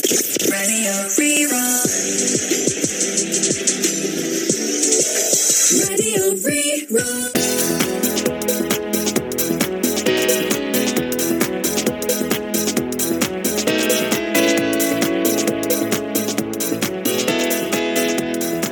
Radio Rí-Rá. Radio Rí-Rá.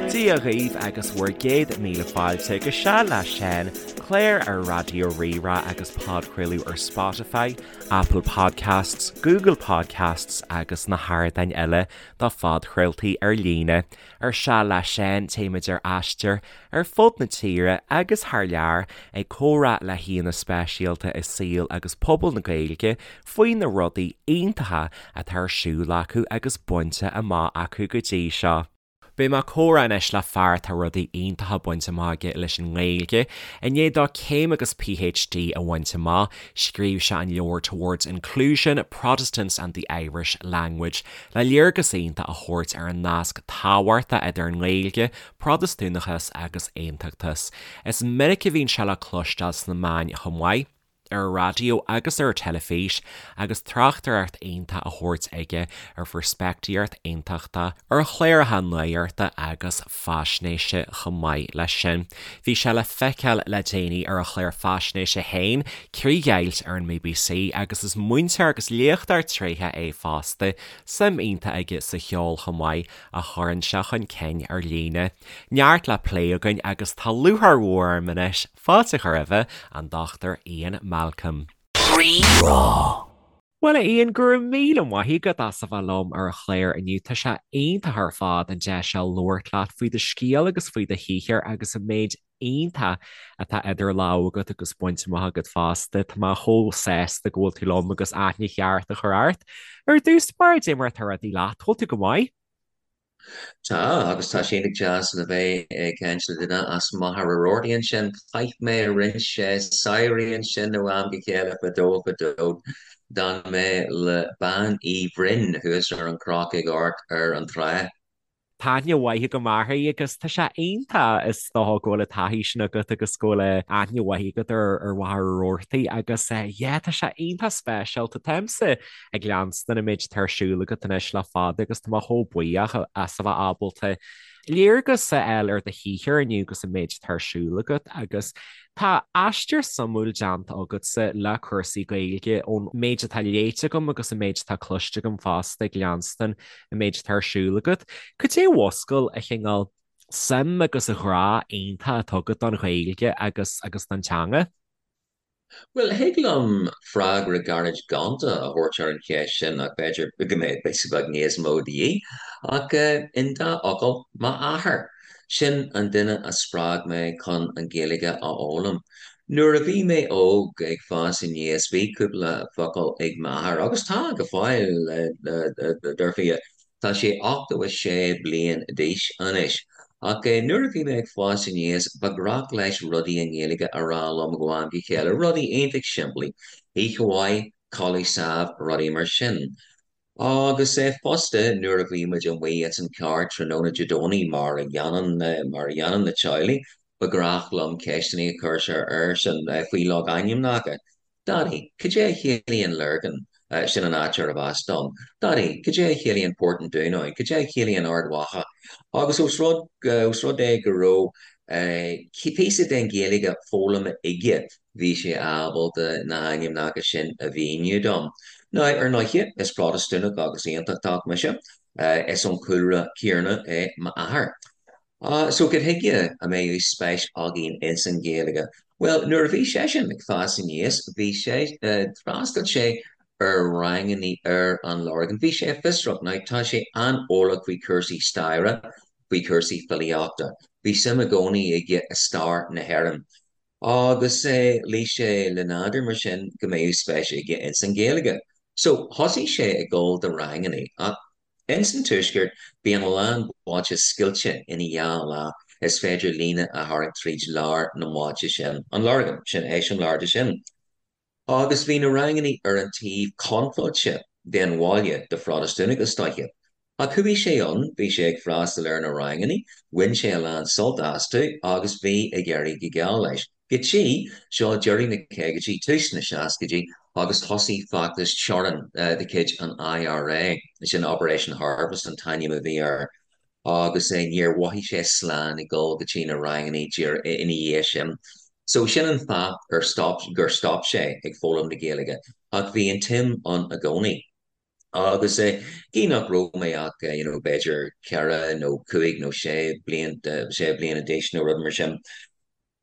Dia dhaoibh agus bhur gcéad míle fáilte go Seal le Seán, clár ar Raidió Rí-Rá agus podchraoladh ar Spotify, Apple Podcasts, Google Podcasts agus na hardáin eile do phodchraoltaí ar líne. Ar Seal le Seán, téimid ar aistear ar fud na tíre agus thar lear ag comhrá le haíonna speisialta i saol agus pobal na Gaeilge faoi na rudaí iontacha atá ar siúl acu agus bainte amach acu go dtí seo. Beidh mé ag comhrá anois le fear atá rudaí iontacha bainte amach aige leis an nGaeilge. I ndiaidh dó céim agus PhD a bhaint amach, scríobh sé an leabhar Towards Inclusion, Protestants and the Irish Language le léargas iontach a thabhairt ar an nasc tábhachtach idir an nGaeilge, Protastúnachas agus Aontachtas. Is minic a bhíonn sé le cloisteáil sna meáin chomh maith. ar an raidió agus ar an teilifís agus tráchtaireacht iontach á thabhairt aige ar pheirspictíocht aontachtach, ar chláracha nuachta agus faisnéise chomh maith leis sin. Bhí sé le feiceáil le déanaí ar a chlár faisnéise féin, Críochdheighilt ar an mBBC agus is múinteoir agus léachtóir tréitheach é fosta, suim iontach aige sa cheol chomh maith a chuireann sé chun cinn ar líne. Neart le plé againn agus tá lúcháir mhór orm anois Fáilte a chur roimhe, an Dr Ian Malcolm. Rí-Rá. Bhuel a Ian, go raibh míle maith agat as a bheith liom ar an chlár inniu. Tá sé iontach ar fad an deis seo labhairt leat faoi do scéal agus faoi do shaothar agus an méid iontach atá idir lámha agat agus bainte amach agat fosta. Tá mé chomh sásta go bhfuil tú liom agus aithne cheart a chur ort. Ar dtús báire, cad é mar atá rudaí leat, bhfuil tú go maith? Tá, agus tá sé iontach deas le bheith ag caint le duine as Machaire Rabhartaigh ansin. Chaith mé roinnt samhraí ansin ó am go chéile fadó fadó. D'fhan mé le Bean Uí Bhroin thuas ar an chnoc ag amharc ar an trá. Tá aithne mhaith agam uirthi agus tá sé iontach is dócha go bhfuil an taithí sin agat agus go bhfuil aithne mhaith agat ar Mhachaire Rabhartaigh agus yeah tá sé iontach speisialta. Táimse ag leanstan an méid atá ar siúl agat anois le fada agus tá mé chomh buíoch as a bheith ábalta léargas a fháil ar do shaothar inniu agus an méid atá ar siúl agat agus tá aistear suimiúil déanta agatsa le cúrsaí Gaeilge ón méid atá léite agam agus an méid atá cloiste agam fosta ag leanstan an méid atá ar siúl agat. Cad é a mhúscail an cineál suim agus an ghrá iontach atá agat don Ghaeilge agus agus don teanga? Bhuel, thig liom freagra gairid gonta a thabhairt ar an cheist sin ach b'fhéidir go mbeadh píosa beag níos mó de dhíth. Ach in dá fhocal, m'athair. Sin an duine a spreag mé chun an Ghaeilge a fhoghlaim. Nuair a bhí mé óg ag fás aníos bhí cúpla focal ag m'athair, agus tá go fóill, dar fia. Tá sé 86 bliain d'aois anois. Ach nuair a bhí mé ag fás aníos, ba ghnách leis rudaí i nGaeilge a rá liom ó am go chéile, rudaí iontach simplí, oíche mhaith, codladh sámh, rudaí mar sin. Agus fosta, nuair a bhí muid amuigh ins an charr tráthnóna Dé Domhnaigh, mar a dhéanann, mar a dhéanann na teaghlaigh, ba ghnách liom ceisteanna a chur airsean faoi logainmneacha. Daidí, cad é a chiallaíonn Lurgan? Sin an áit arbh as dom. Daidí, cad é a chiallaíonn Port an Dúnáin? Cad é a chiallaíonn Ard Mhacha? Agus ós rud, ós rud é go raibh píosa den Ghaeilge foghlamtha aige, bhí sé ábalta na hainmneacha sin a mhíniú dom. Now, ar ndóighe, is Protastúnach agus Aontachtach mise. Is ón chúlra céanna é m'athair. So cad chuige a mbeadh spéis againn ins an Ghaeilge? Bhuel, nuair a bhí seisean ag fás aníos, bhí sé, d'fhreastail sé ar rangannaí ar an Lorgain. Bhí sé fiosrach. Now, tá sé an-eolach faoi chúrsaí staire, faoi chúrsaí filíochta. Bhí suim i gcónaí aige i stair na hÉireann. Agus luigh sé le nádúr mar sin go mbeadh spéis aige ins an Ghaeilge. So, thosaigh sé ag dul do rangannaí. Ach Ins an Tuaisceart, bíonn a lán bailte scoilte ina dhá leath, is féidir líne a tharraingt tríd lár na mbailte sin, an Lorgain, sin eiseamláir de sin. Agus bhí na rangannaí ar an taobh contráilte den bhaile do Phrotastúnaigh, is dóiche. Ach chuaigh sé ann, bhí sé ag freastal ar na rangannaí, bhain sé a lán sult astu agus bhí ag éirí go geal leis. Go dtí, seo deireadh na caogaidí, tús na seascaidí. agus thosaigh feachtas teorann de chuid an IRA, sin Operation Harvest an t-ainm a bhí air, agus níor mhothaigh sé slán ag dul go dtí na ranganna ina dhiaidh sin. So sin an fáth gur stop gur stop sé ag foghlaim na Gaeilge, ach bhí an tsuim ann i gcónaí. Agus gidh nach raibh mé ach you know b'fhéidir ceithre nó cúig nó sé bliain sé bliana d'aois nó rud mar sin,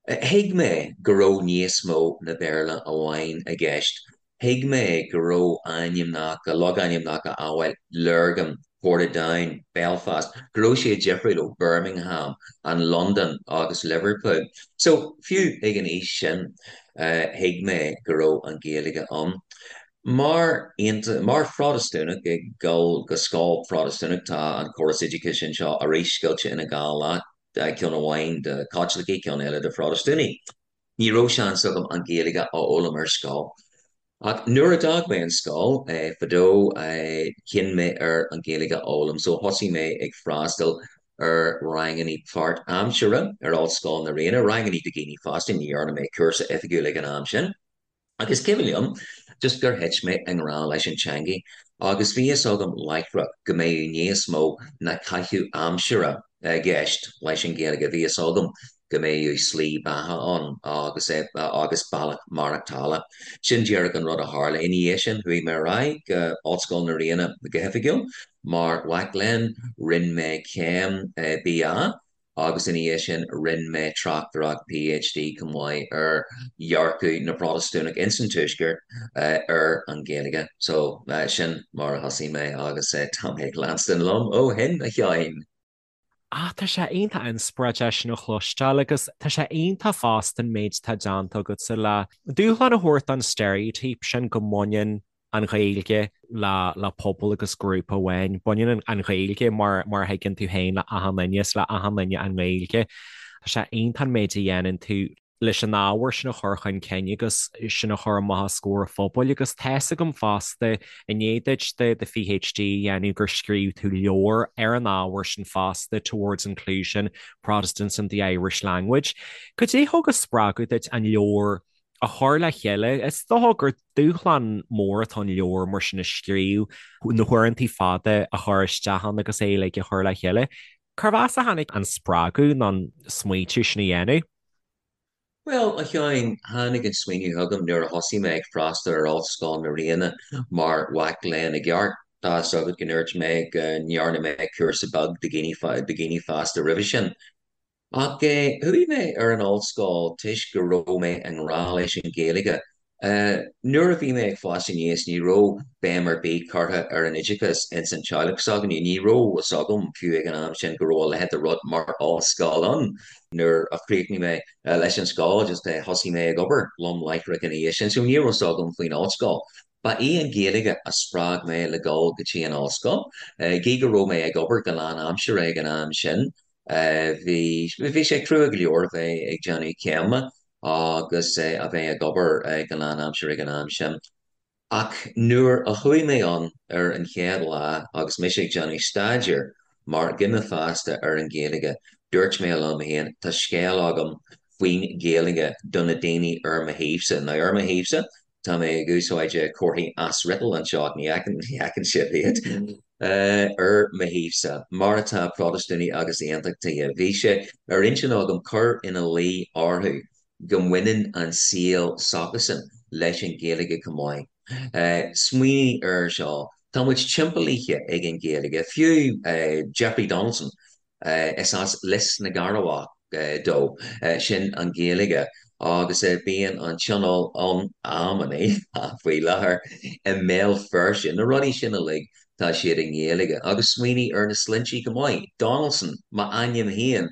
Thuig mé go raibh níos mó na Béarla amháin i gceist. Thuig mé go raibh ainmneacha, logainmneacha amhail Lurgan, Portadown, Belfast, go raibh siad difriúil ó Birmingham and London agus Liverpool. So, fiú ag an aois sin, thuig mé go raibh an Ghaeilge ann. Mar, mar Phrotastúnach ag dul go scoil Phrotastúnach, tá an córas oideachais anseo arís scoilte ina dhá leath. ceann amháin do Chaitlicigh, ceann eile do Phrotastúnaigh. Ní raibh seans agam an Ghaeilge a fhoghlaim ar scoil. Ach nuair a d'fhág mé an scoil fadó, chinn mé ar an Ghaeilge a fhoghlaim, so thosaigh mé ag freastal ar ranganna páirtaimseartha ar Ollscoil na Ríona, ranganna do dhaoine fásta, ní dhearna mé cúrsa oifigiúil ag an am sin. Ach is cuimhin liom just gur thit mé i ngrá leis an teangaidh agus bhí fhios agam láithreach go mbeadh níos mó ná caitheamh aimsire i gceist leis an Ghaeilge, bhí fhios agam go mbeadh slí beatha ann agus agus bealach maireachtála. Sin díreach an rud a tharla. Ina dhiaidh sin chuaigh mé ar aghaidh go Ollscoil na Ríona go hoifigiúil mar mhac léinn, rinne mé céim BA agus ina dhiaidh sin rinne mé tráchtaireacht PhD chomh maith ar dhearcadh na bProtastúnach ins an Tuaisceart ar an Ghaeilge. So, sin mar a thosaigh mé agus tá mé ag leanstan liom ó shin, a Sheáin. Ah, tá sé iontach inspioráideach sin a chloisteáil agus tá sé iontach fosta an méid atá déanta agatsa le dúshlán a thabhairt don steiréitíop sin go mbaineann an Ghaeilge le le pobal agus grúpa amháin. Baineann an Ghaeilge mar mar a thuigeann tú féin le achan duine, is le achan duine an Ghaeilge. Tá sé iontach an méid a dhéanann tú leis an ábhar sin a chur chun cinn agus sin a chur amach os comhair an phobail agus tá's agam fosta i ndiaidh duit do do PhD a dhéanamh gur scríobh tú leabhar ar an ábhar sin fosta, Towards Inclusion, Protestants and the Irish Language. Cad é thug an spreagadh duit an leabhar a chur le chéile. Is dócha gur dúshlán mór atá ann leabhar mar sin a scríobh, na huaireanta fada a chur isteach ann agus é uilig a chur le chéile. Cérbh as a tháinig an spreagadh nó an smaointiú sin a dhéanamh? Bhuel, a Sheáin, tháinig an smaoineamh chugam nuair a thosaigh mé ag freastal ar Ollscoil na Ríona mar mhac léinn i gceart. Tá fhios agat go ndúirt mé go ndearna mé cúrsa beag do dhaoine fásta roimhe sin. Ach chuaigh mé ar an ollscoil toisc go raibh mé i ngrá leis an Ghaeilge. Nuair a bhí mé ag fás aníos ní raibh béim ar bith curtha ar an oideachas ins an teaghlach s'againne. Ní raibh fhios agam fiú ag an am sin go raibh a leithéid de rud mar ollscoil ann. Nuair a chríochnaigh mé leis an scoil just thosaigh mé ag obair lom láithreach ina dhiaidh sin so ní raibh fhios agam faoin ollscoil. Ba í an Ghaeilge a spreag mé le dul go dtí an ollscoil. Gí go raibh mé ag obair go lánaimseartha ag an am sin, Bhí, bhí sé crua go leor a bheith ag déanamh céime agus a bheith ag obair go lánaimseartha ag an am sin. Ach nuair a chuaigh mé ann ar an chéad lá agus mise ag déanamh staidéir mar dhuine fásta ar an Ghaeilge, dúirt mé liom féin, tá scéal agam faoin Ghaeilge do na daoine ar mo thaobhsa. Now ar mo thaobhsa, Tá mé ag úsáid comharthaí asfhriotail anseo ach ní fheiceann sibh iad. Ar mo thaobhsa, mar atá Protastúnaigh agus Aontachtaithe, bhí sé ar intinn agam cur ina luí orthu go mbaineann an saol s'acusan leis an Ghaeilge chomh maith. Smaoinigh air seo, tá muid timpeallaithe ag an Ghaeilge, fiú Jeffrey Donaldson, Is as Lios na gCearrbhach dó, sin an Ghaeilge, agus bíonn an tionól ann amannaí faoi láthair i mBéal Feirste. Na rudaí sin uilig, tá siad i nGaeilge. Agus smaoinigh ar na sloinnte chomh maith, Donaldson, m'ainm féin,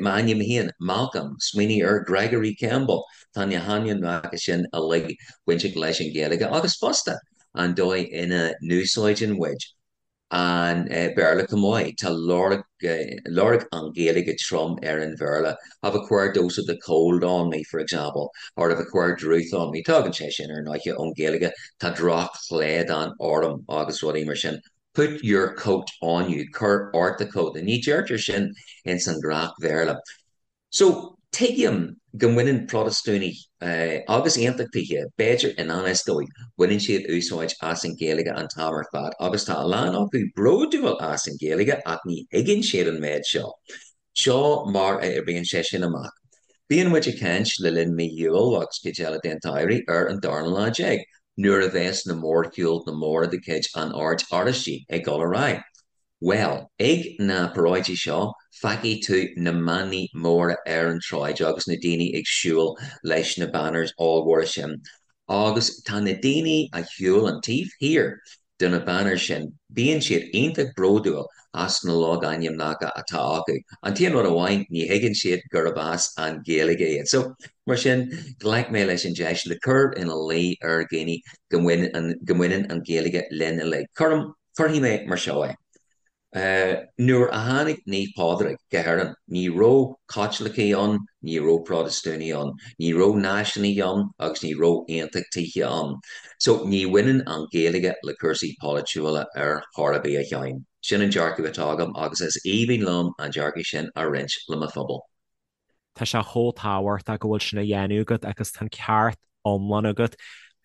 m'ainm féin, Malcolm, smaoinigh ar Gregory Campbell, tá na hainmneacha sin uilig bainteach leis an Ghaeilge agus fosta an dóigh ina n-úsáideann muid an Béarla chomh maith. Tá lorg lorg an Ghaeilge trom ar an Bhéarla. I've a queer dose of the cold on me, for example, or I've a queer drooth on me. Tagann sé sin ar ndóighe ón Ghaeilge. Tá drochshlaghdán orm agus rudaí mar sin. Put your coat on you, cuir ort do chóta. Ní deirtear sin ins an ghnáth-Bhéarla. So. Tuigim go mbaineann Protastúnaigh agus Aontachtaithe, b'fhéidir i ngan fhios dóibh, baineann siad úsáid as an Ghaeilge an t-am ar fad agus tá a lán acu bródúil as an Ghaeilge ach ní thuigeann siad an méid seo. Seo mar a oibríonn sé sin amach. Bíonn muid ag caint le linn mí Iúil agus cuid eile den tsamhraidh ar an darna lá déag, nuair a bheas na mórshiúlta móra de chuid an Oird Oráistigh ag dul ar aghaidh. Bhuel, ag na paráidí seo, feicfidh tú na manaí móra ar an tsráid agus na daoine ag siúl leis na banners ollmhóra sin. Agus tá na daoine a shiúlann taobh thiar de na banners sin, bíonn siad iontach bródúil as na logainmneacha atá acu. An t-aon rud amháin, ní thuigeann siad gurb as an Ghaeilge iad. So, mar sin, ghlac mé leis an deis le cur ina luí ar dhaoine go mbaineann an Ghaeilge linn uilig. Cuirim. Cuirfidh mé mar seo é. Nuair a tháinig Naomh Pádraig go hÉirinn, ní raibh Caitlicigh ann, ní raibh Protastúnaigh ann, ní raibh náisiúnaithe ann agus ní raibh aontachtaithe ann. So, ní bhaineann an Ghaeilge le cúrsaí polaitiúla ar chor ar bith, a Sheáin. Sin an dearcadh atá agam agus is aoibhinn liom an dearcadh sin a roinnt le mo phobal. Tá sé chomh tábhachtach go bhfuil sin á dhéanamh agat agus tá an ceart iomlán agat.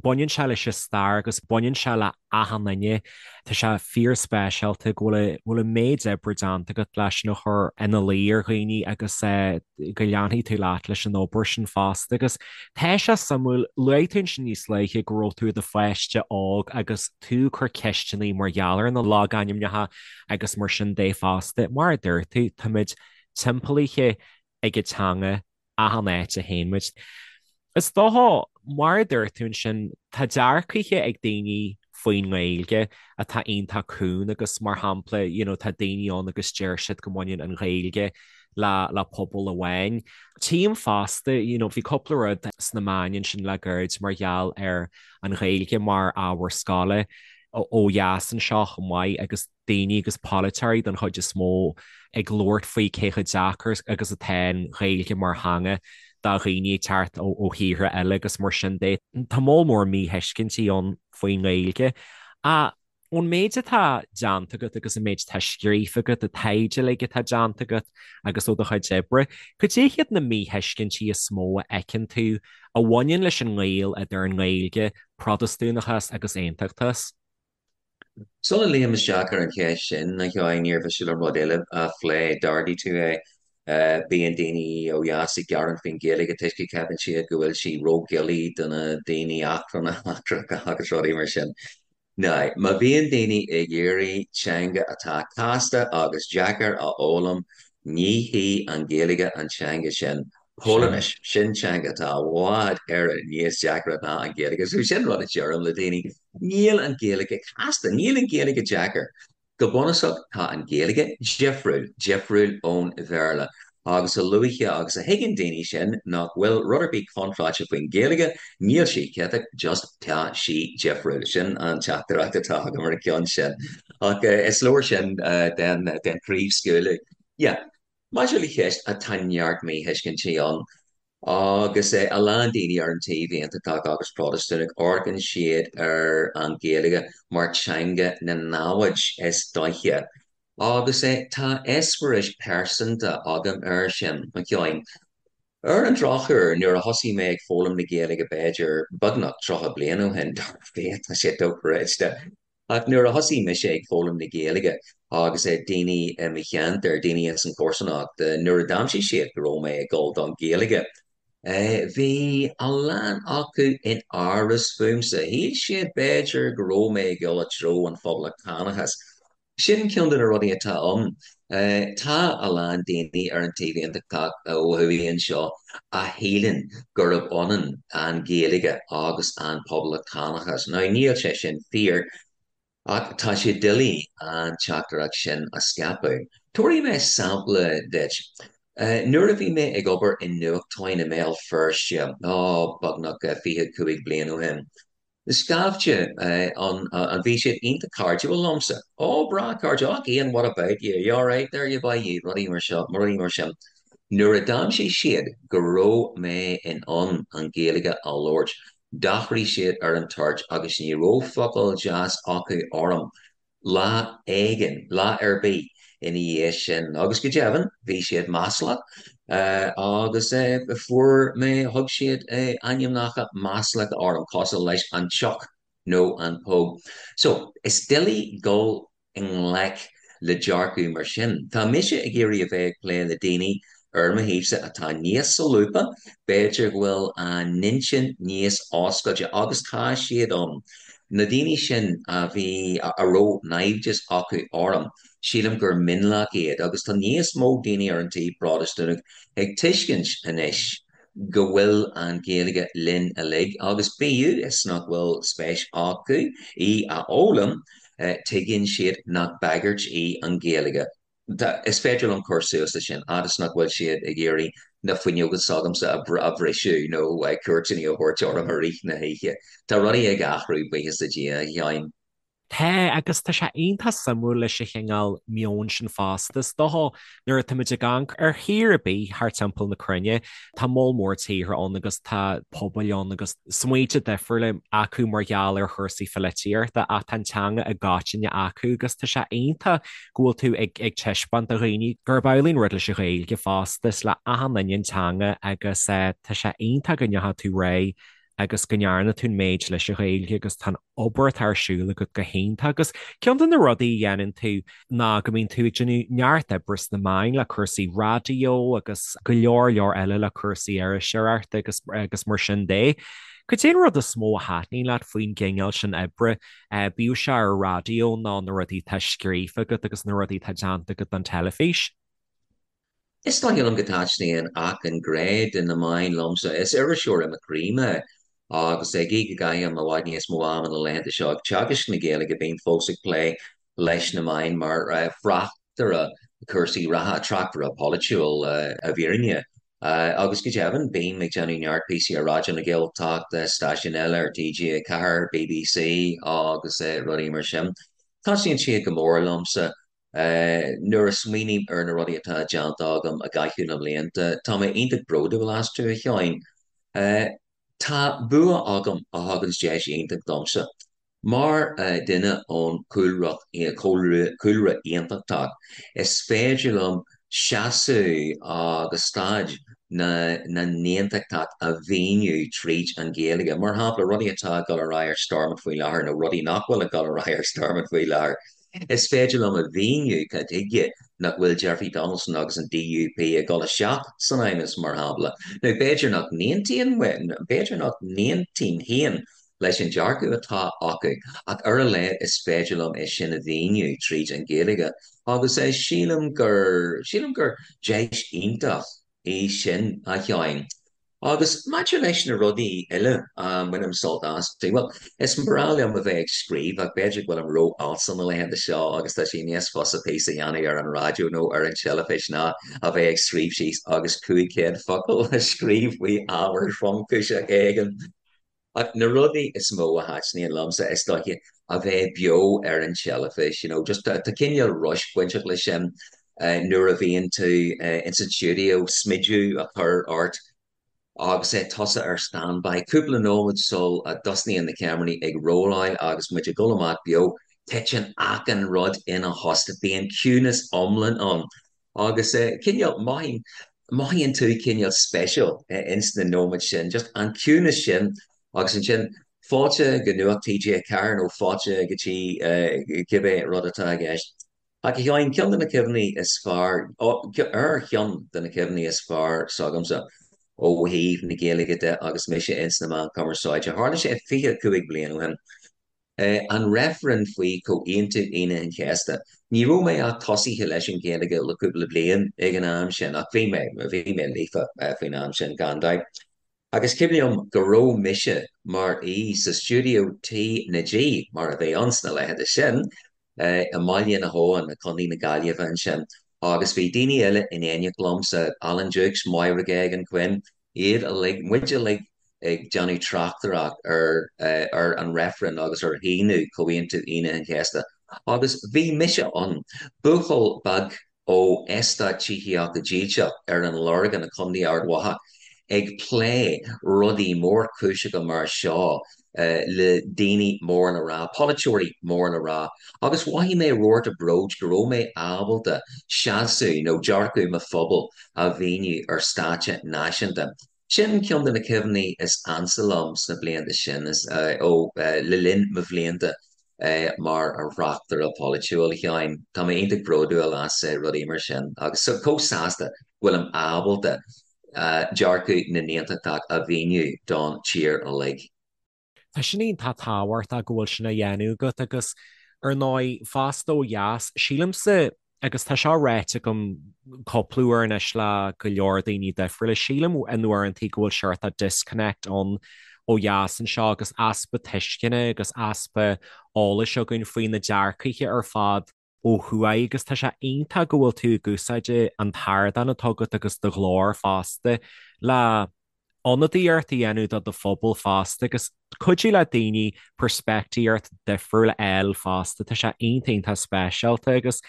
Baineann sé leis an stair agus baineann sé le achan duine. Tá sé fíorspeisialta go bhfuil bhfuil an méid oibre déanta agat leis sin a chur ina luí ar dhaoine agus go leanfaidh tú leat leis an obair sin fosta. Agus tá sé suimiúil, luaigh tú ansin níos luaithe go raibh tú i do pháiste óg agus tú ag cur ceisteanna mar gheall ar na logainmneacha agus mar sin de fosta. Mar a dúirt tú, táimid timpeallaithe ag an teanga achan áit a théann muid. Is dócha, mar a dúirt tú ansin, tá dearcaithe ag daoine faoin nGaeilge atá iontach cúng agus mar shampla, you know, tá daoine ann agus deir siad go mbaineann an Ghaeilge le le pobal amháin. Tchím fosta, you know, bhí cúpla rud sna meáin ansin le gairid mar gheall ar an Ghaeilge mar ábhar scoile ó dheas anseo chomh maith agus daoine agus polaiteoirí den chuid is mó ag labhairt faoi cé chomh deacair agus atá an Ghaeilge mar theanga do dhaoine ag teacht ó thíortha eile agus mar sin de. Tá moll mór míthuiscintí ann faoin nGaeilge. Ach ón méid atá déanta agat agus an méid atá scríofa agat, an taighde uilig atá déanta agat agus ó do chuid oibre, cad é hiad na míthuiscintí is mó a fheiceann tú a bhaineann leis an ngaol idir an nGaeilge, Protastúnachas agus Aontachtachas? Sula luím isteach ar an cheist sin, a Sheáin, níor mhiste liom rud eile a phlé. D'ardaigh tú é. Bíonn daoine ó dheas ag gearán faoin Ghaeilge toisc go gceapann siad go bhfuil sí ródhoiligh do na daoine eachtrannacha agus rudaí mar sin. Now, má bhíonn daoine ag iarraidh teanga atá casta agus deacair a fhoghlaim, ní hí an Ghaeilge an teanga sin. Polainnis, sin teanga atá i bhfad Éireann níos deacra ná an Ghaeilge. So sin rud a deirim le daoine, níl an Ghaeilge casta, níl an Ghaeilge deacair. Go bunúsach tá an Ghaeilge difriúil, difriúil ón Bhéarla. Agus a luaithe agus a thuigeann daoine sin nach bhfuil rud ar bith contráilte faoin Ghaeilge, níl sí ciotach, just tá sí difriúil. Sin an teachtaireacht atá agam ar an gceann sin. Ach is leor sin den chraobhscaoileadh. Yeah. Maidir le ceist, tá neart míthuiscintí ann agus a lán daoine ar an taobh aontachtach agus Protastúnach, amharcann siad ar an Ghaeilge mar teanga na namhad is dóiche. Agus tá eispéireas pearsanta agam air sin, a Sheáin. Ar an drochuair, nuair a thosaigh mé ag foghlaim na Gaeilge b'fhéidir beagnach 30 bliain ó shin, dar fia, tá sé dochreidte, Ach nuair a thosaigh mise ag foghlaim na Gaeilge agus daoine i mo cheantar, daoine ins an chomharsanacht, nuair a d'aimsigh siad go raibh mé ag dul don Ghaeilge, bhí a lán acu in amhras fúmsa. Shíl siad b'fhéidir go raibh mé ag dul i dtreo an phoblachtánachais. Sin ceann de na rudaí atá ann. Tá a lán daoine ar an taobh aontachtach ó thuaidh anseo a shíleann gurb ionann an Ghaeilge agus an poblachtánachas. Now níl sé sin fíor, ach tá sé doiligh an teachtaireacht sin a scaipeadh. Tabharfaidh mé sampla duit. Nuair a bhí mé ag obair i nuachtáin i mBéal Feirste, ó, beagnach 25 bliain ó shin, Scaifte ann, bhí siad iontach cairdiúil liomsa. Ó, breá cairdiúil, ach Ian, what about you? You alright there, you boy, you? Rudaí mar seo, rudaí mar sin. Nuair a d'aimsigh siad go raibh mé in ann an Ghaeilge a labhairt, d'athraigh siad ar an toirt agus ní raibh focal deas acu orm lá éigin, lá ar bith. ina dhiaidh sin. Agus go deimhin, bhí siad maslach agus fuair mé, thug siad ainmneacha maslacha orm, cosúil leis an tsioc nó an póg. So, is doiligh dul i ngleic le dearcadh mar sin. Tá mise ag iarraidh a bheith ag plé le daoine ar mo thaobhsa atá níos solúbtha, b'fhéidir go bhfuil a n-intinn níos oscailte, agus tá siad ann. Na daoine sin a bhí, a raibh naimhdeas acu orm, sílim gur mionlach iad, agus tá níos mó daoine ar an taobh Protastúnach ag tuiscint anois go bhfuil an Ghaeilge linn uilig agus bíodh is nach bhfuil spéis acu í a fhoghlaim, tuigeann siad nach bagairt í an Ghaeilge. Is féidir liom cur suas leis sin, fhad is nach bhfuil siad ag iarraidh na fuinneoga s'agamsa a bhriseadh nó cuairteanna a thabhairt orm i rith na hoíche. Tá rudaí ag athrú, buíochas le Dia, a Sheáin. Tá, agus tá sé iontach suimiúil leis an chineál meoin sin fosta. Is dócha, nuair atáimid ag amharc ar thír ar bith thart timpeall na cruinne, tá moll mór tíortha ann agus tá pobail ann agus smaointe difriúla acu mar gheall ar chúrsaí pholaitíochta ach tá an teanga i gcoitinne acu agus tá sé iontach go bhfuil tú ag ag taispeáint do dhaoine gurb amhlaidh an rud leis an Ghaeilge fosta, is le achan duine an teanga agus tá sé iontach go ndeachaigh tú ar aghaidh agus go ndearna tú an méid leis an Ghaeilge agus tá an obair atá ar siúl agat go hiontach agus ceann de na rudaí a dhéanann tú ná go mbíonn tú ag déanamh neart oibre sna meáin le cúrsaí raidió agus go leor leor eile le cúrsaí iriseoireachta agus agus mar sin de. Cad é an rud is mó a thaitníonn leat faoin gcineál sin oibre, bíodh sé ar raidió nó na rudaí atá scríofa agat agus na rudaí atá déanta agat don teilifís? Is dóigh liom go dtaitníonn achan ghné de na meáin liomsa. Is iriseoir i mo chroí mé agus gí go gcaithim i bhfad níos mó ama na laethanta seo ag teagasc na Gaeilge, bím fós ag plé leis na meáin mar thráchtaire cúrsaí reatha, tráchtaire polaitiúil i bhfírinne. Agus go deimhin, bím ag déanamh neart píosaí ar Raidió na Gaeltachta, stáisiúin eile ar TG4, BBC agus rudaí mar sin. Taitníonn siad go mór liomsa. Nuair a smaoiním ar na rudaí atá déanta agam i gcaitheamh na mblianta, tá mé iontach bródúil astu, a Sheáin. Tá bua agam a thuganns deis iontach domsa. Mar dhuine ón chúlra aontachtach, is féidir liom seasamh agus staid na n-aontachtach a mhíniú tríd an Ghaeilge. Mar shampla, rudaí atá ag dul ar aghaidh ar Stormont faoi láthair nó rudaí nach bhfuil ag dul ar aghaidh ar Stormont faoi láthair. Is féidir liom a mhíniú cad chuige nach bhfuil Jeffrey Donaldson agus an DUP ag dul isteach san Fheidhmeannas, mar shampla. Nó b'fhéidir nach n-aontaíonn, b'fhéidir nach n-aontaím féin leis an dearcadh atá acu, ach ar a laghad is féidir liom é sin a mhíniú tríd an Ghaeilge. Agus sílim gur, sílim gur deis iontach í sin, a Sheáin. Agus maidir leis na rudaí eile a mbainim sult astu, bhuel, is breá liom a bheith ag scríobh ach b'fhéidir go bhfuilim ró-fhalsa na laethanta seo agus tá sé níos fusa píosa a dhéanamh ar an raidió nó ar an teilifís ná a bheith ag scríobh síos agus 500 focal a scríobh faoi ábhar tromchúiseach éigin. Ach na rudaí is mó a thaitníonn liomsa, is dóiche, a bheith beo ar an teilifís, you know, just tá cineál rush bainteach leis sin nuair a bhíonn tú ins an stiúideo, smideadh a chur ort agus tusa ar standby cúpla nóiméad sul a dtosnaíonn na ceamaraí ag rolláil agus muid ag dul amach beo, titeann achan rud ina thost, bíonn ciúnas iomlán ann. Agus cineál, mothaíonn, mothaíonn tú cineál special ins na nóiméid sin, just an ciúnas sin agus ansin fáilte go Nuacht TG4 nó fáilte go dtí cibé rud atá i gceist. Ach a Sheáin, ceann de na cuimhní is fearr, ar cheann de na cuimhní is fearr s'agamsa ó thaobh na Gaeilge de agus mise ins na meáin chumarsáide, tharla sé 25 bliain ó shin. An reifreann faoi Chomhaontú Aoine an Chéasta. Ní raibh mé ach tosaithe leis an Ghaeilge le cúpla bliain ag an am sin, ach bhí mé, bhí mé líofa faoin am sin, gan dabht. Agus cuimhin liom go raibh mise mar aoi sa stiúideo T na G, mar a bhí ann sna laethanta sin, i mBaile na hAbhann, i gContae na Gaillimhe ansin, agus bhí daoine eile in éineacht liomsa, Alan Dukes, Máire Geoghegan Quinn, iad uilig, muid uilig ag déanamh tráchtaireacht ar ar an reifreann agus ar shíniú Chomhaontú Aoine an Chéasta. Agus bhí mise ann, buachaill beag ó eastát tithíochta dílseach ar an Lorgain i Contae Ard Mhacha, ag plé rudaí mórchúiseacha mar seo. le daoine mór le rá, polaiteoirí mór le rá, agus mhothaigh mé rabharta bróid go raibh mé ábalta seasamh nó dearcadh mo phobail a mhíniú ar stáitse náisiúnta. Sin ceann de na cuimhní is ansa liom sna blianta sin, ó le linn mo bhlianta mar thráchtaire polaitiúil, a Sheáin. Tá mé iontach bródúil as rudaí mar sin agus chomh sásta go bhfuilim ábalta dearcadh na nAontachtach a mhíniú don tír uilig. Tá sin iontach tábhachtach go bhfuil sin á dhéanamh agat agus ar ndóigh fosta ó dheas, sílimse, agus tá seo ráite agam cúpla uair anois le go leor daoine difriúla, sílim in uaireantaí go bhfuil seort of disconnect ann ó dheas anseo agus easpa tuisceana agus easpa eolais againn faoi na dearcaithe ar fad ó thuaidh agus tá sé iontach go bhfuil tú ag úsáid an t-ardán atá agat agus do ghlór fosta le ionadaíocht a dhéanamh do do phobal fosta agus cuidiú le daoine peirspictíocht difriúil a fháil fosta. Tá sé iontach iontach speisialta agus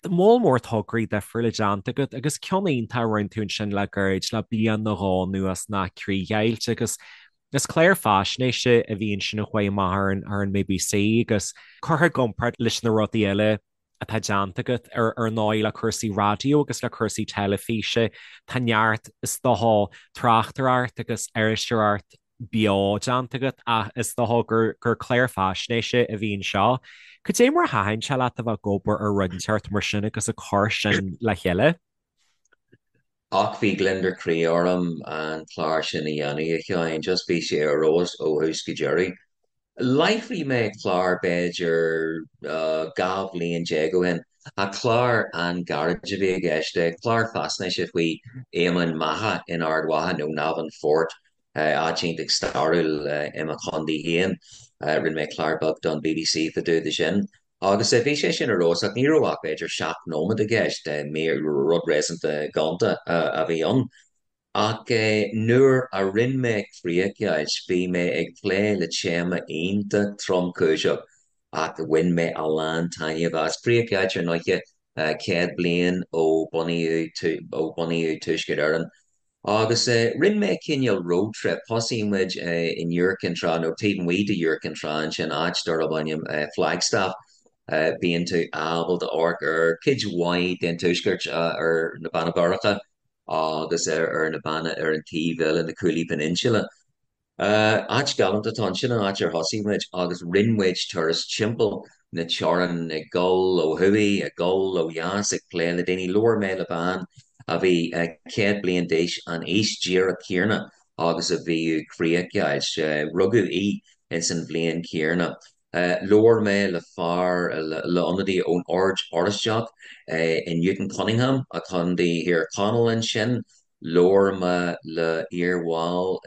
moll mór tograí difriúla déanta agat agus ceann iontach a rinne tú ansin le gairid, le bliain nó dhó anuas ná Críochdheighilt agus is clár faisnéise a bhí ansin a chuaigh amach ar an ar an mBBC agus curtha i gcomparáid leis na rudaí eile atá déanta agat, ar ndóigh, le cúrsaí raidió agus le cúrsaí teilifíse. Tá neart, is dócha, tráchtaireacht agus iriseoireacht beo déanta agat ach is dócha gur gur clár faisnéise a bhí anseo. Cad é mar a thaitin sé leat a bheith ag obair ar rud inteacht mar sin agus ag cur sin le chéile? Ach bhí gliondar croí orm an clár sin a dhéanamh, a Sheáin. Just bhí sé ar fheabhas ó thús go deireadh. Láithrigh mé clár b'fhéidir 12 bhliain ó shin, ach clár an-ghairid a bhí i gceist, clár faisnéise faoi Emain Macha in Ard Mhacha, nó Navan Fort, áit iontach stairiúil i mo chontae féin. Rinne mé clár beag don bbc fá dtaobh de sin. Agus bhí sé sin ar fheabhas ach ní raibh ach b'fhéidir 7 nóiméad i gceist, rud réasúnta gonta a bhí ann. Ach nuair a rinne mé críochdheighilt, bhí mé ag plé le téama iontach tromchúiseach ach bhain mé a lán taitneamh as. Críochdheighilt ar ndóiche, 100 bliain ó bunaíodh Tuaisceart Éireann. Agus rinne mé cineál road trip, thosaigh muid in Iúr Cinn Trá, nó taobh amuigh de Iúr Cinn Trá ansin, áit darb ainm Flagstaff. Bíonn tú ábalta amharc ar cuid mhaith den tuaisceart, ar na Beanna Boirche agus ar na beanna ar an taobh eile, na Cooley Peninsula. Áit galánta atá ann. Sin an áit ar thosaigh muid agus rinne muid turas timpeall na teorann, ag dul ó thuaidh, ag dul ó dheas, ag plé le daoine. Labhair mé le bean a bhí 100 bliain d'aois, an aois díreach céanna agus a bhíodh críochdheighilt. Rugadh í ins an bhliain chéanna. Labhair mé le fear, le ionadaí ón Ord Oráisteach i Newton Cunningham, i gContae Thír Chonaill ansin. Labhair mé le iarbhall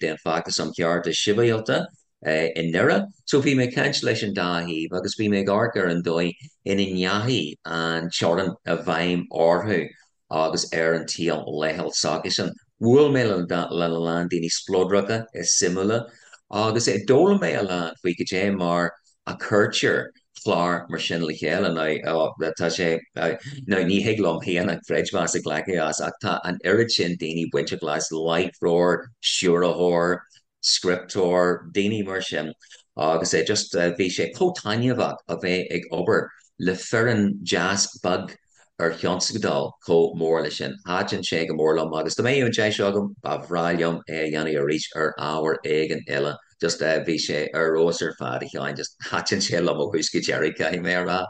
den Feachtas um Chearta Sibhialta i nDoire. So bhí mé ag caint leis an dá thaobh agus bhí mé ag amharc ar an dóigh ina ndeachaigh an teorainn i bhfeidhm orthu agus ar an tsaol laethúil s'acusan. Bhuail mé le a lán daoine spleodracha is suimiúla agus d'fhoghlaim mé a lán faoi cad é mar a cuirtear clár mar sin le chéile. Now, tá sé, now ní thig liom féin an creidmheas a ghlacadh as ach tá an oiread sin daoine bainteach leis, láithreoir, stiúrthóir, scripteoir, daoine mar sin agus just bhí sé chomh taitneamhach a bheith ag obair le foireann deas beag ar thionscadal chomh mór leis sin. Thaitin sé go mór liom agus dá mbeadh an deis agam, ba bhreá liom é a dhéanamh arís ar ábhar éigin eile. Just bhí sé ar fheabhas ar fad, a Sheáin, just thaitin sé liom ó thús go deireadh, caithfidh mé a rá.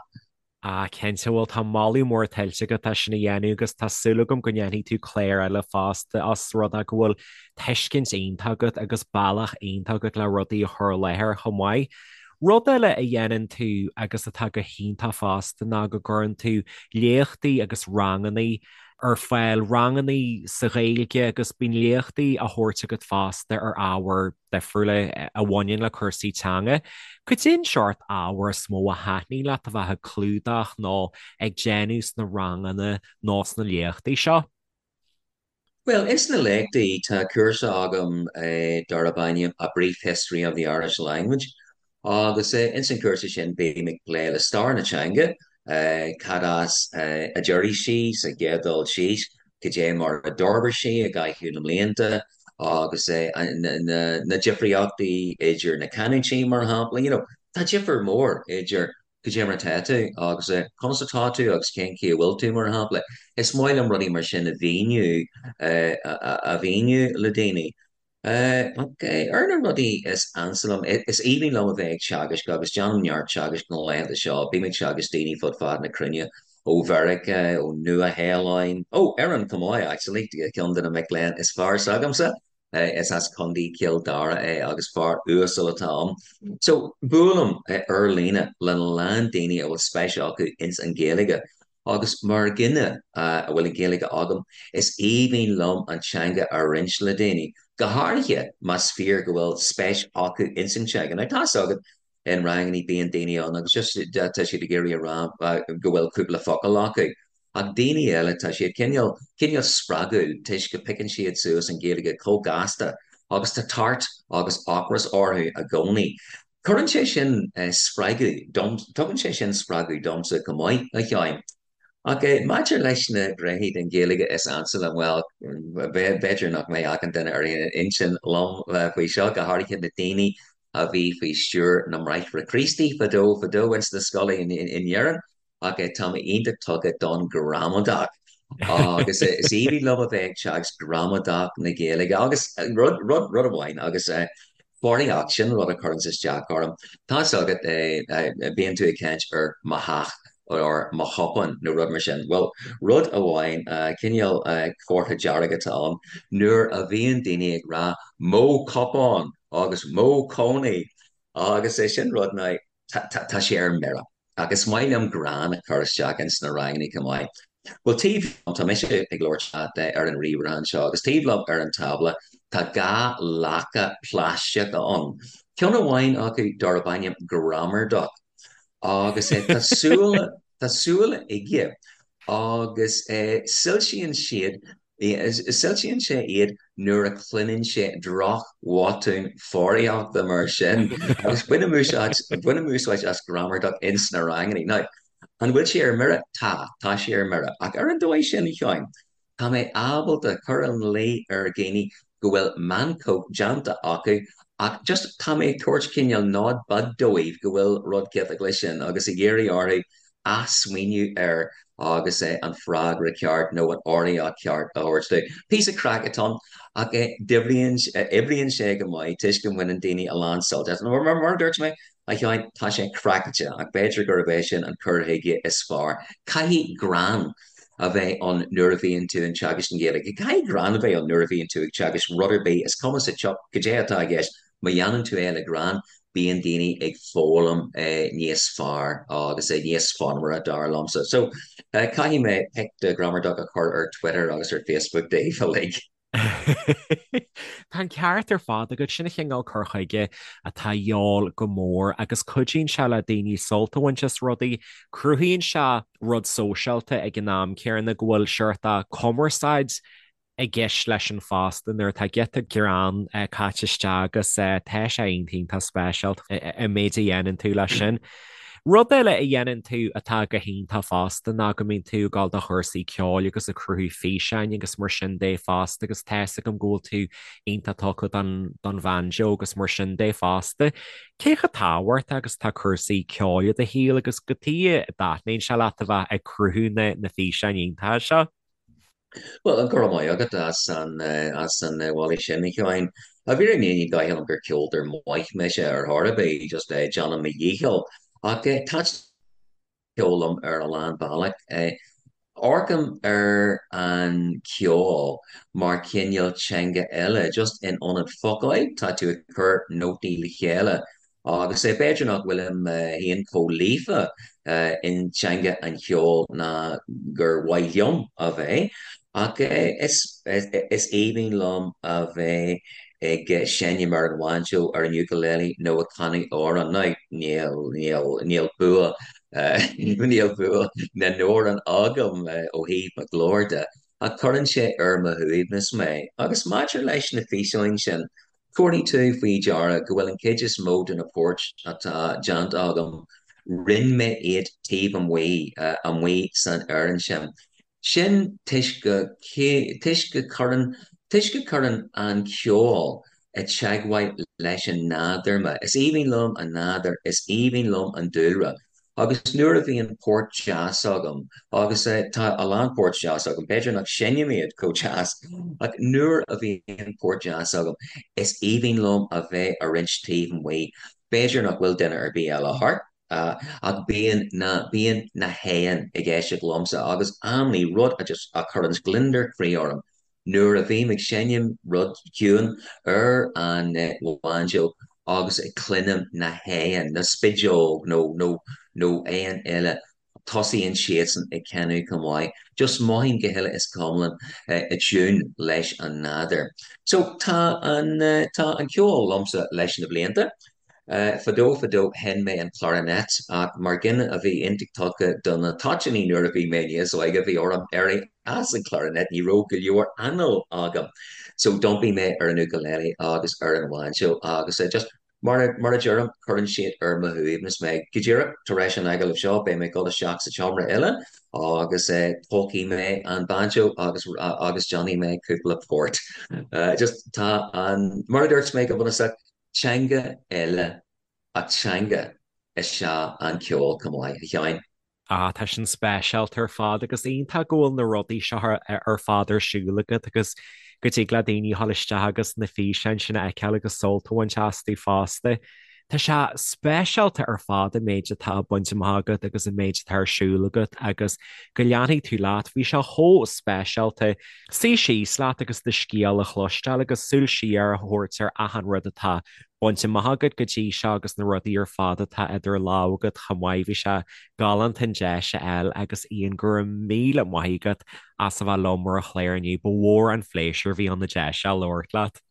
Ah, cinnte, bhuel tá moladh mór tuillte agat as sin a dhéanamh agus tá súil agam go ndéanfaidh tú clár eile fosta os rud é go bhfuil tuiscint iontach agat agus bealach iontach agat le rudaí a chur i láthair chomh maith. Rud eile a dhéanann tú agus atá go hiontach fosta ná go gcuireann tú léachtaí agus rangannaí ar fáil, rangannaí sa Ghaeilge agus bíonn léachtaí á thabhairt agat fosta ar ábhair difriúla a bhaineann le cúrsaí teanga. Cad é an seort ábhair is mó a thaitníonn leat a bheith ag clúdach nó ag déanamh sna ranganna nó sna léachtaí seo? Bhuel, ins na léachtaí tá cúrsa agam darb ainm A Brief History of the Irish Language agus ins an chúrsa sin bím ag plé le stair na teanga, cad as a d'éirigh sí sa gcéad dul síos, cad é mar a d'fhorbair sí i gcaitheamh na mblianta. Agus na difríochtaí idir na canúintí, mar shampla, you know, tá difear mór idir cad é mar atá tú agus conas atá tú agus cén chaoi a bhfuil tú, mar shampla. Is maith liom rudaí mar sin a mhíniú, a mhíniú le daoine. Ach ar na rudaí is ansa liom, is aoibhinn liom a bheith ag teagasc agus déanaim neart teagaisc na laethanta seo. Bím ag teagasc daoine fud fad na cruinne, ó Mheiriceá, ó Nua-Shéalainn, ó Éirinn chomh maith actually, ceann de na mic léinn is fearr s'agamsa, is as Contae Chill Dara é agus fear uasal atá ann. So, buailim ar líne lena lán daoine a bhfuil spéis acu ins an Ghaeilge Agus mar dhuine a bhfuil an Ghaeilge agam, is aoibhinn liom an teanga a roinnt le daoine, go háirithe más fíor go bhfuil spéis acu ins an teanga. Now, tá's agat, in rangannaí bíonn daoine ann agus just tá siad ag iarraidh a rá go bhfuil cúpla focal acu. Ach daoine eile, tá siad cineál, cineál spreagúil toisc go piocann siad suas an Ghaeilge chomh gasta agus tá tart agus ocras orthu i gcónaí. Cuireann sé sin spreagadh dom, tugann sé sin spreagadh domsa chomh maith, a Sheáin. Ach maidir leis na gnéithe den Ghaeilge is ansa liom, bhuel, b'fhéidir nach mbeidh achan duine ar aon intinn liom faoi seo, go háirithe na daoine a bhí faoi stiúir na mBráithre Críostaí fadó fadó ins na scoileanna in Éirinn. Ach tá mé iontach tugtha don ghramadach agus is aoibhinn liom a bheith ag teagasc gramadach na Gaeilge agus rud, rud, rud amháin agus foghraíocht, sin rud a chuireanns isteach orm. Tá's agat, bíonn tú ag caint ar mo theach or mo chupán nó rud mar sin. Bhuel, rud amháin, cineál comhartha dearg atá ann nuair a bhíonn daoine ag rá mo chupán agus mo chónaí agus é sin rud ná tá sé ar mire. Ach is maith liom greann a chur isteach ins na rangannaí chomh maith. Bhuel, taobh liom, tá mise ag labhairt leat ar an ríomhaire anseo, agus taobh liom ar an tábla tá 2 lacha plaisteacha ann. Ceann amháin acu darb ainm Grammar Duck agus tá súile, tá súile aige agus soilsíonn siad Soilsíonn sé iad nuair a chluineann sé droch-bhotún foghraíochta mar sin agus bainim úsáid, bainim úsáid as Grammar Duck ins na rangannaí. Now, an bhfuil sé ar mire? Tá, tá sé ar mire. Ach ar an dóigh sin, a Sheáin, tá mé ábalta cur ina luí ar dhaoine go bhfuil meancóg déanta acu ach just tá mé ag tabhairt cineál nod beag dóibh go bhfuil rud ciotach leis sin agus ag iarraidh orthu athsmaoineamh air agus an freagra ceart nó an fhoghraíocht cheart a thabhairt dóibh. Píosa craic atá ann ach oibríonn sé go maith toisc go mbaineann daoine a lán sult as. Mar a dúirt mé, a Sheáin, tá sé craiceáilte ach b'fhéidir gurb é sin an cur chuige is fearr. Caithfidh greann a bheith ann nuair a bhíonn tú ag teagasc na Gaeilge. Caithfidh greann a bheith ann nuair a bhíonn tú ag teagasc rud ar bith, is cuma sa tsioc cad é atá i gceist. Má dhéanann tú é le greann, bíonn daoine ag foghlaim níos fearr agus níos fonnmhaire, dar liomsa. So, caithfidh mé pic de Grammar Duck a chur ar Twitter agus ar Facebook daoibh uilig. Tá an ceart ar fad agat, sin an chineál cur chuige atá de dhíobháil go mór agus cuidíonn sé le daoine sult a bhaint as rudaí, cruthaíonn sé rud sóisialta ag an am céanna go bhfuil seort cumarsáid i gceist leis an fosta nuair atá giota greann caite isteach agus tá sé iontach iontach speisialta an méid a dhéanann tú leis sin. Rud eile a dhéanann tú atá go hiontach fosta ná go mbíonn tú ag dul do chúrsaí ceoil agus ag cruthú físeáin agus mar sin de fosta agus tá 'fhios agam go bhfuil tú iontach tugtha don don bhanjo agus mar sin de fosta. Cé chomh tábhachtach agus atá cúrsaí ceoil i do shaol agus cad chuige a dtaitníonn sé leat a bheith ag cruthú na na físeáin iontacha seo? Bhuel, go raibh maith agat as an as an mholadh sin, a Sheáin. I bhfírinne ní dóigh liom gur ceoltóir maith mise ar chor ar bith, just déanaim mo dhícheall. Ach taitníonn ceol liom ar a lán bealach. Amharcaim ar an cheol mar chineál teanga eile, just in ionad focail, tá tú ag cur nótaí le chéile. Agus b'fhéidir nach bhfuilim féin chomh líofa in teanga an cheoil ná gur mhaith liom a bheith, ach is aoibhinn liom a bheith ag seinm ar an bhainseó, ar an ukulele nó ag canadh amhrán. Now, níl, níl, níl bua, níl bua na n-amhrán agam ó thaobh mo ghlóir de, ach cuireann sé ar mo shuaimhneas mé. Agus maidir leis na físeáin sin, Tabharfaidh tú faoi deara go bhfuil an chuid is mó de na poirt atá déanta agam, rinne mé iad taobh amuigh, amuigh san fhearann sin. Sin toisc go, toisc go cuireann Toisc go cuireann an ceol i teagmháil leis an nádúr mé. Is aoibhinn liom an nádúr, is aoibhinn liom an dúlra. Agus nuair a bhíonn port deas agam, agus tá a lán port deas agam, b'fhéidir nach seinnim iad chomh deas, ach nuair a bhíonn port deas agam, is aoibhinn liom a bheith a roinnt taobh amuigh. B'fhéidir nach bhfuil duine ar bith eile thart, ach bíonn na, bíonn na héin ag éisteacht liomsa agus amannaí rud a just, a chuireanns gliondar croí orm, Nuair a bhím ag seinm rud ciúin ar an bhainseó agus ag cluinim na héin, na spideog nó nó nó éin eile, tosaíonn siadsan ag canadh chomh maith. Just mothaím go huile is go hiomlán i dtiún leis an nádúr. So tá an tá an ceol liomsa leis na blianta. Fadó fadó sheinn mé an clarinet ach mar dhuine a bhí iontach tugtha do na toitíní nuair a bhí mé níos óige bhí orm éirí as an clarinet, ní raibh go leor anáil agam. So d'iompaigh mé ar an ukulele agus ar an bhainseó agus just mar a mar a deirim cuireann siad ar mo shuaimhneas mé. Go díreach tar éis an agallaimh seo beidh mé ag dul isteach sa tseomra eile agus tógfaidh mé an banjo agus agus déanfaidh mé cúpla port. Just tá an mar a dúirt mé go bunúsach Teanga eile ach teanga is ea an ceol chomh maith, a Sheáin. Ah, tá sin speisialta ar fad agus iontach go bhfuil na rudaí seo ar fad ar siúl agat agus go dtig le daoine a dhul isteach agus na físeáin sin a fheiceáil agus sult a bhaint astu fosta. Tá sé speisialta ar fad an méid atá bainte amach agat agus an méid atá ar siúl agat agus go leanfaidh tú leat. Bhí sé chomh speisialta suí síos leat agus do scéal a chloisteáil agus súil siar a thabhairt ar achan rud atá bainte amach agat go dtí seo agus na rudaí ar fad atá idir lámha agat chomh maith. Bhí sé galánta an deis a fháil agus Ian, go raibh míle maith agat as a bheith liom ar an chlár inniu. Ba mhór an phléisiúr a bhí ann an deis seo labhairt leat.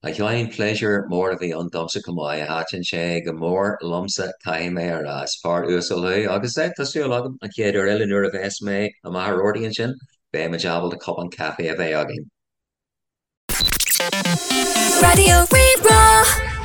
A Sheáin, pléisiúr mór a bhí ann domsa chomh maith. Thaitin sé go mór liomsa, caithfidh mé a rá. Is fear uasal thú agus tá súil agam an chéad uair eile nuair a bheas mé i Machaire Rabhartaigh ansin, beidh muid ábalta cupán caife a bheith againn. Raidió Rí-Rá.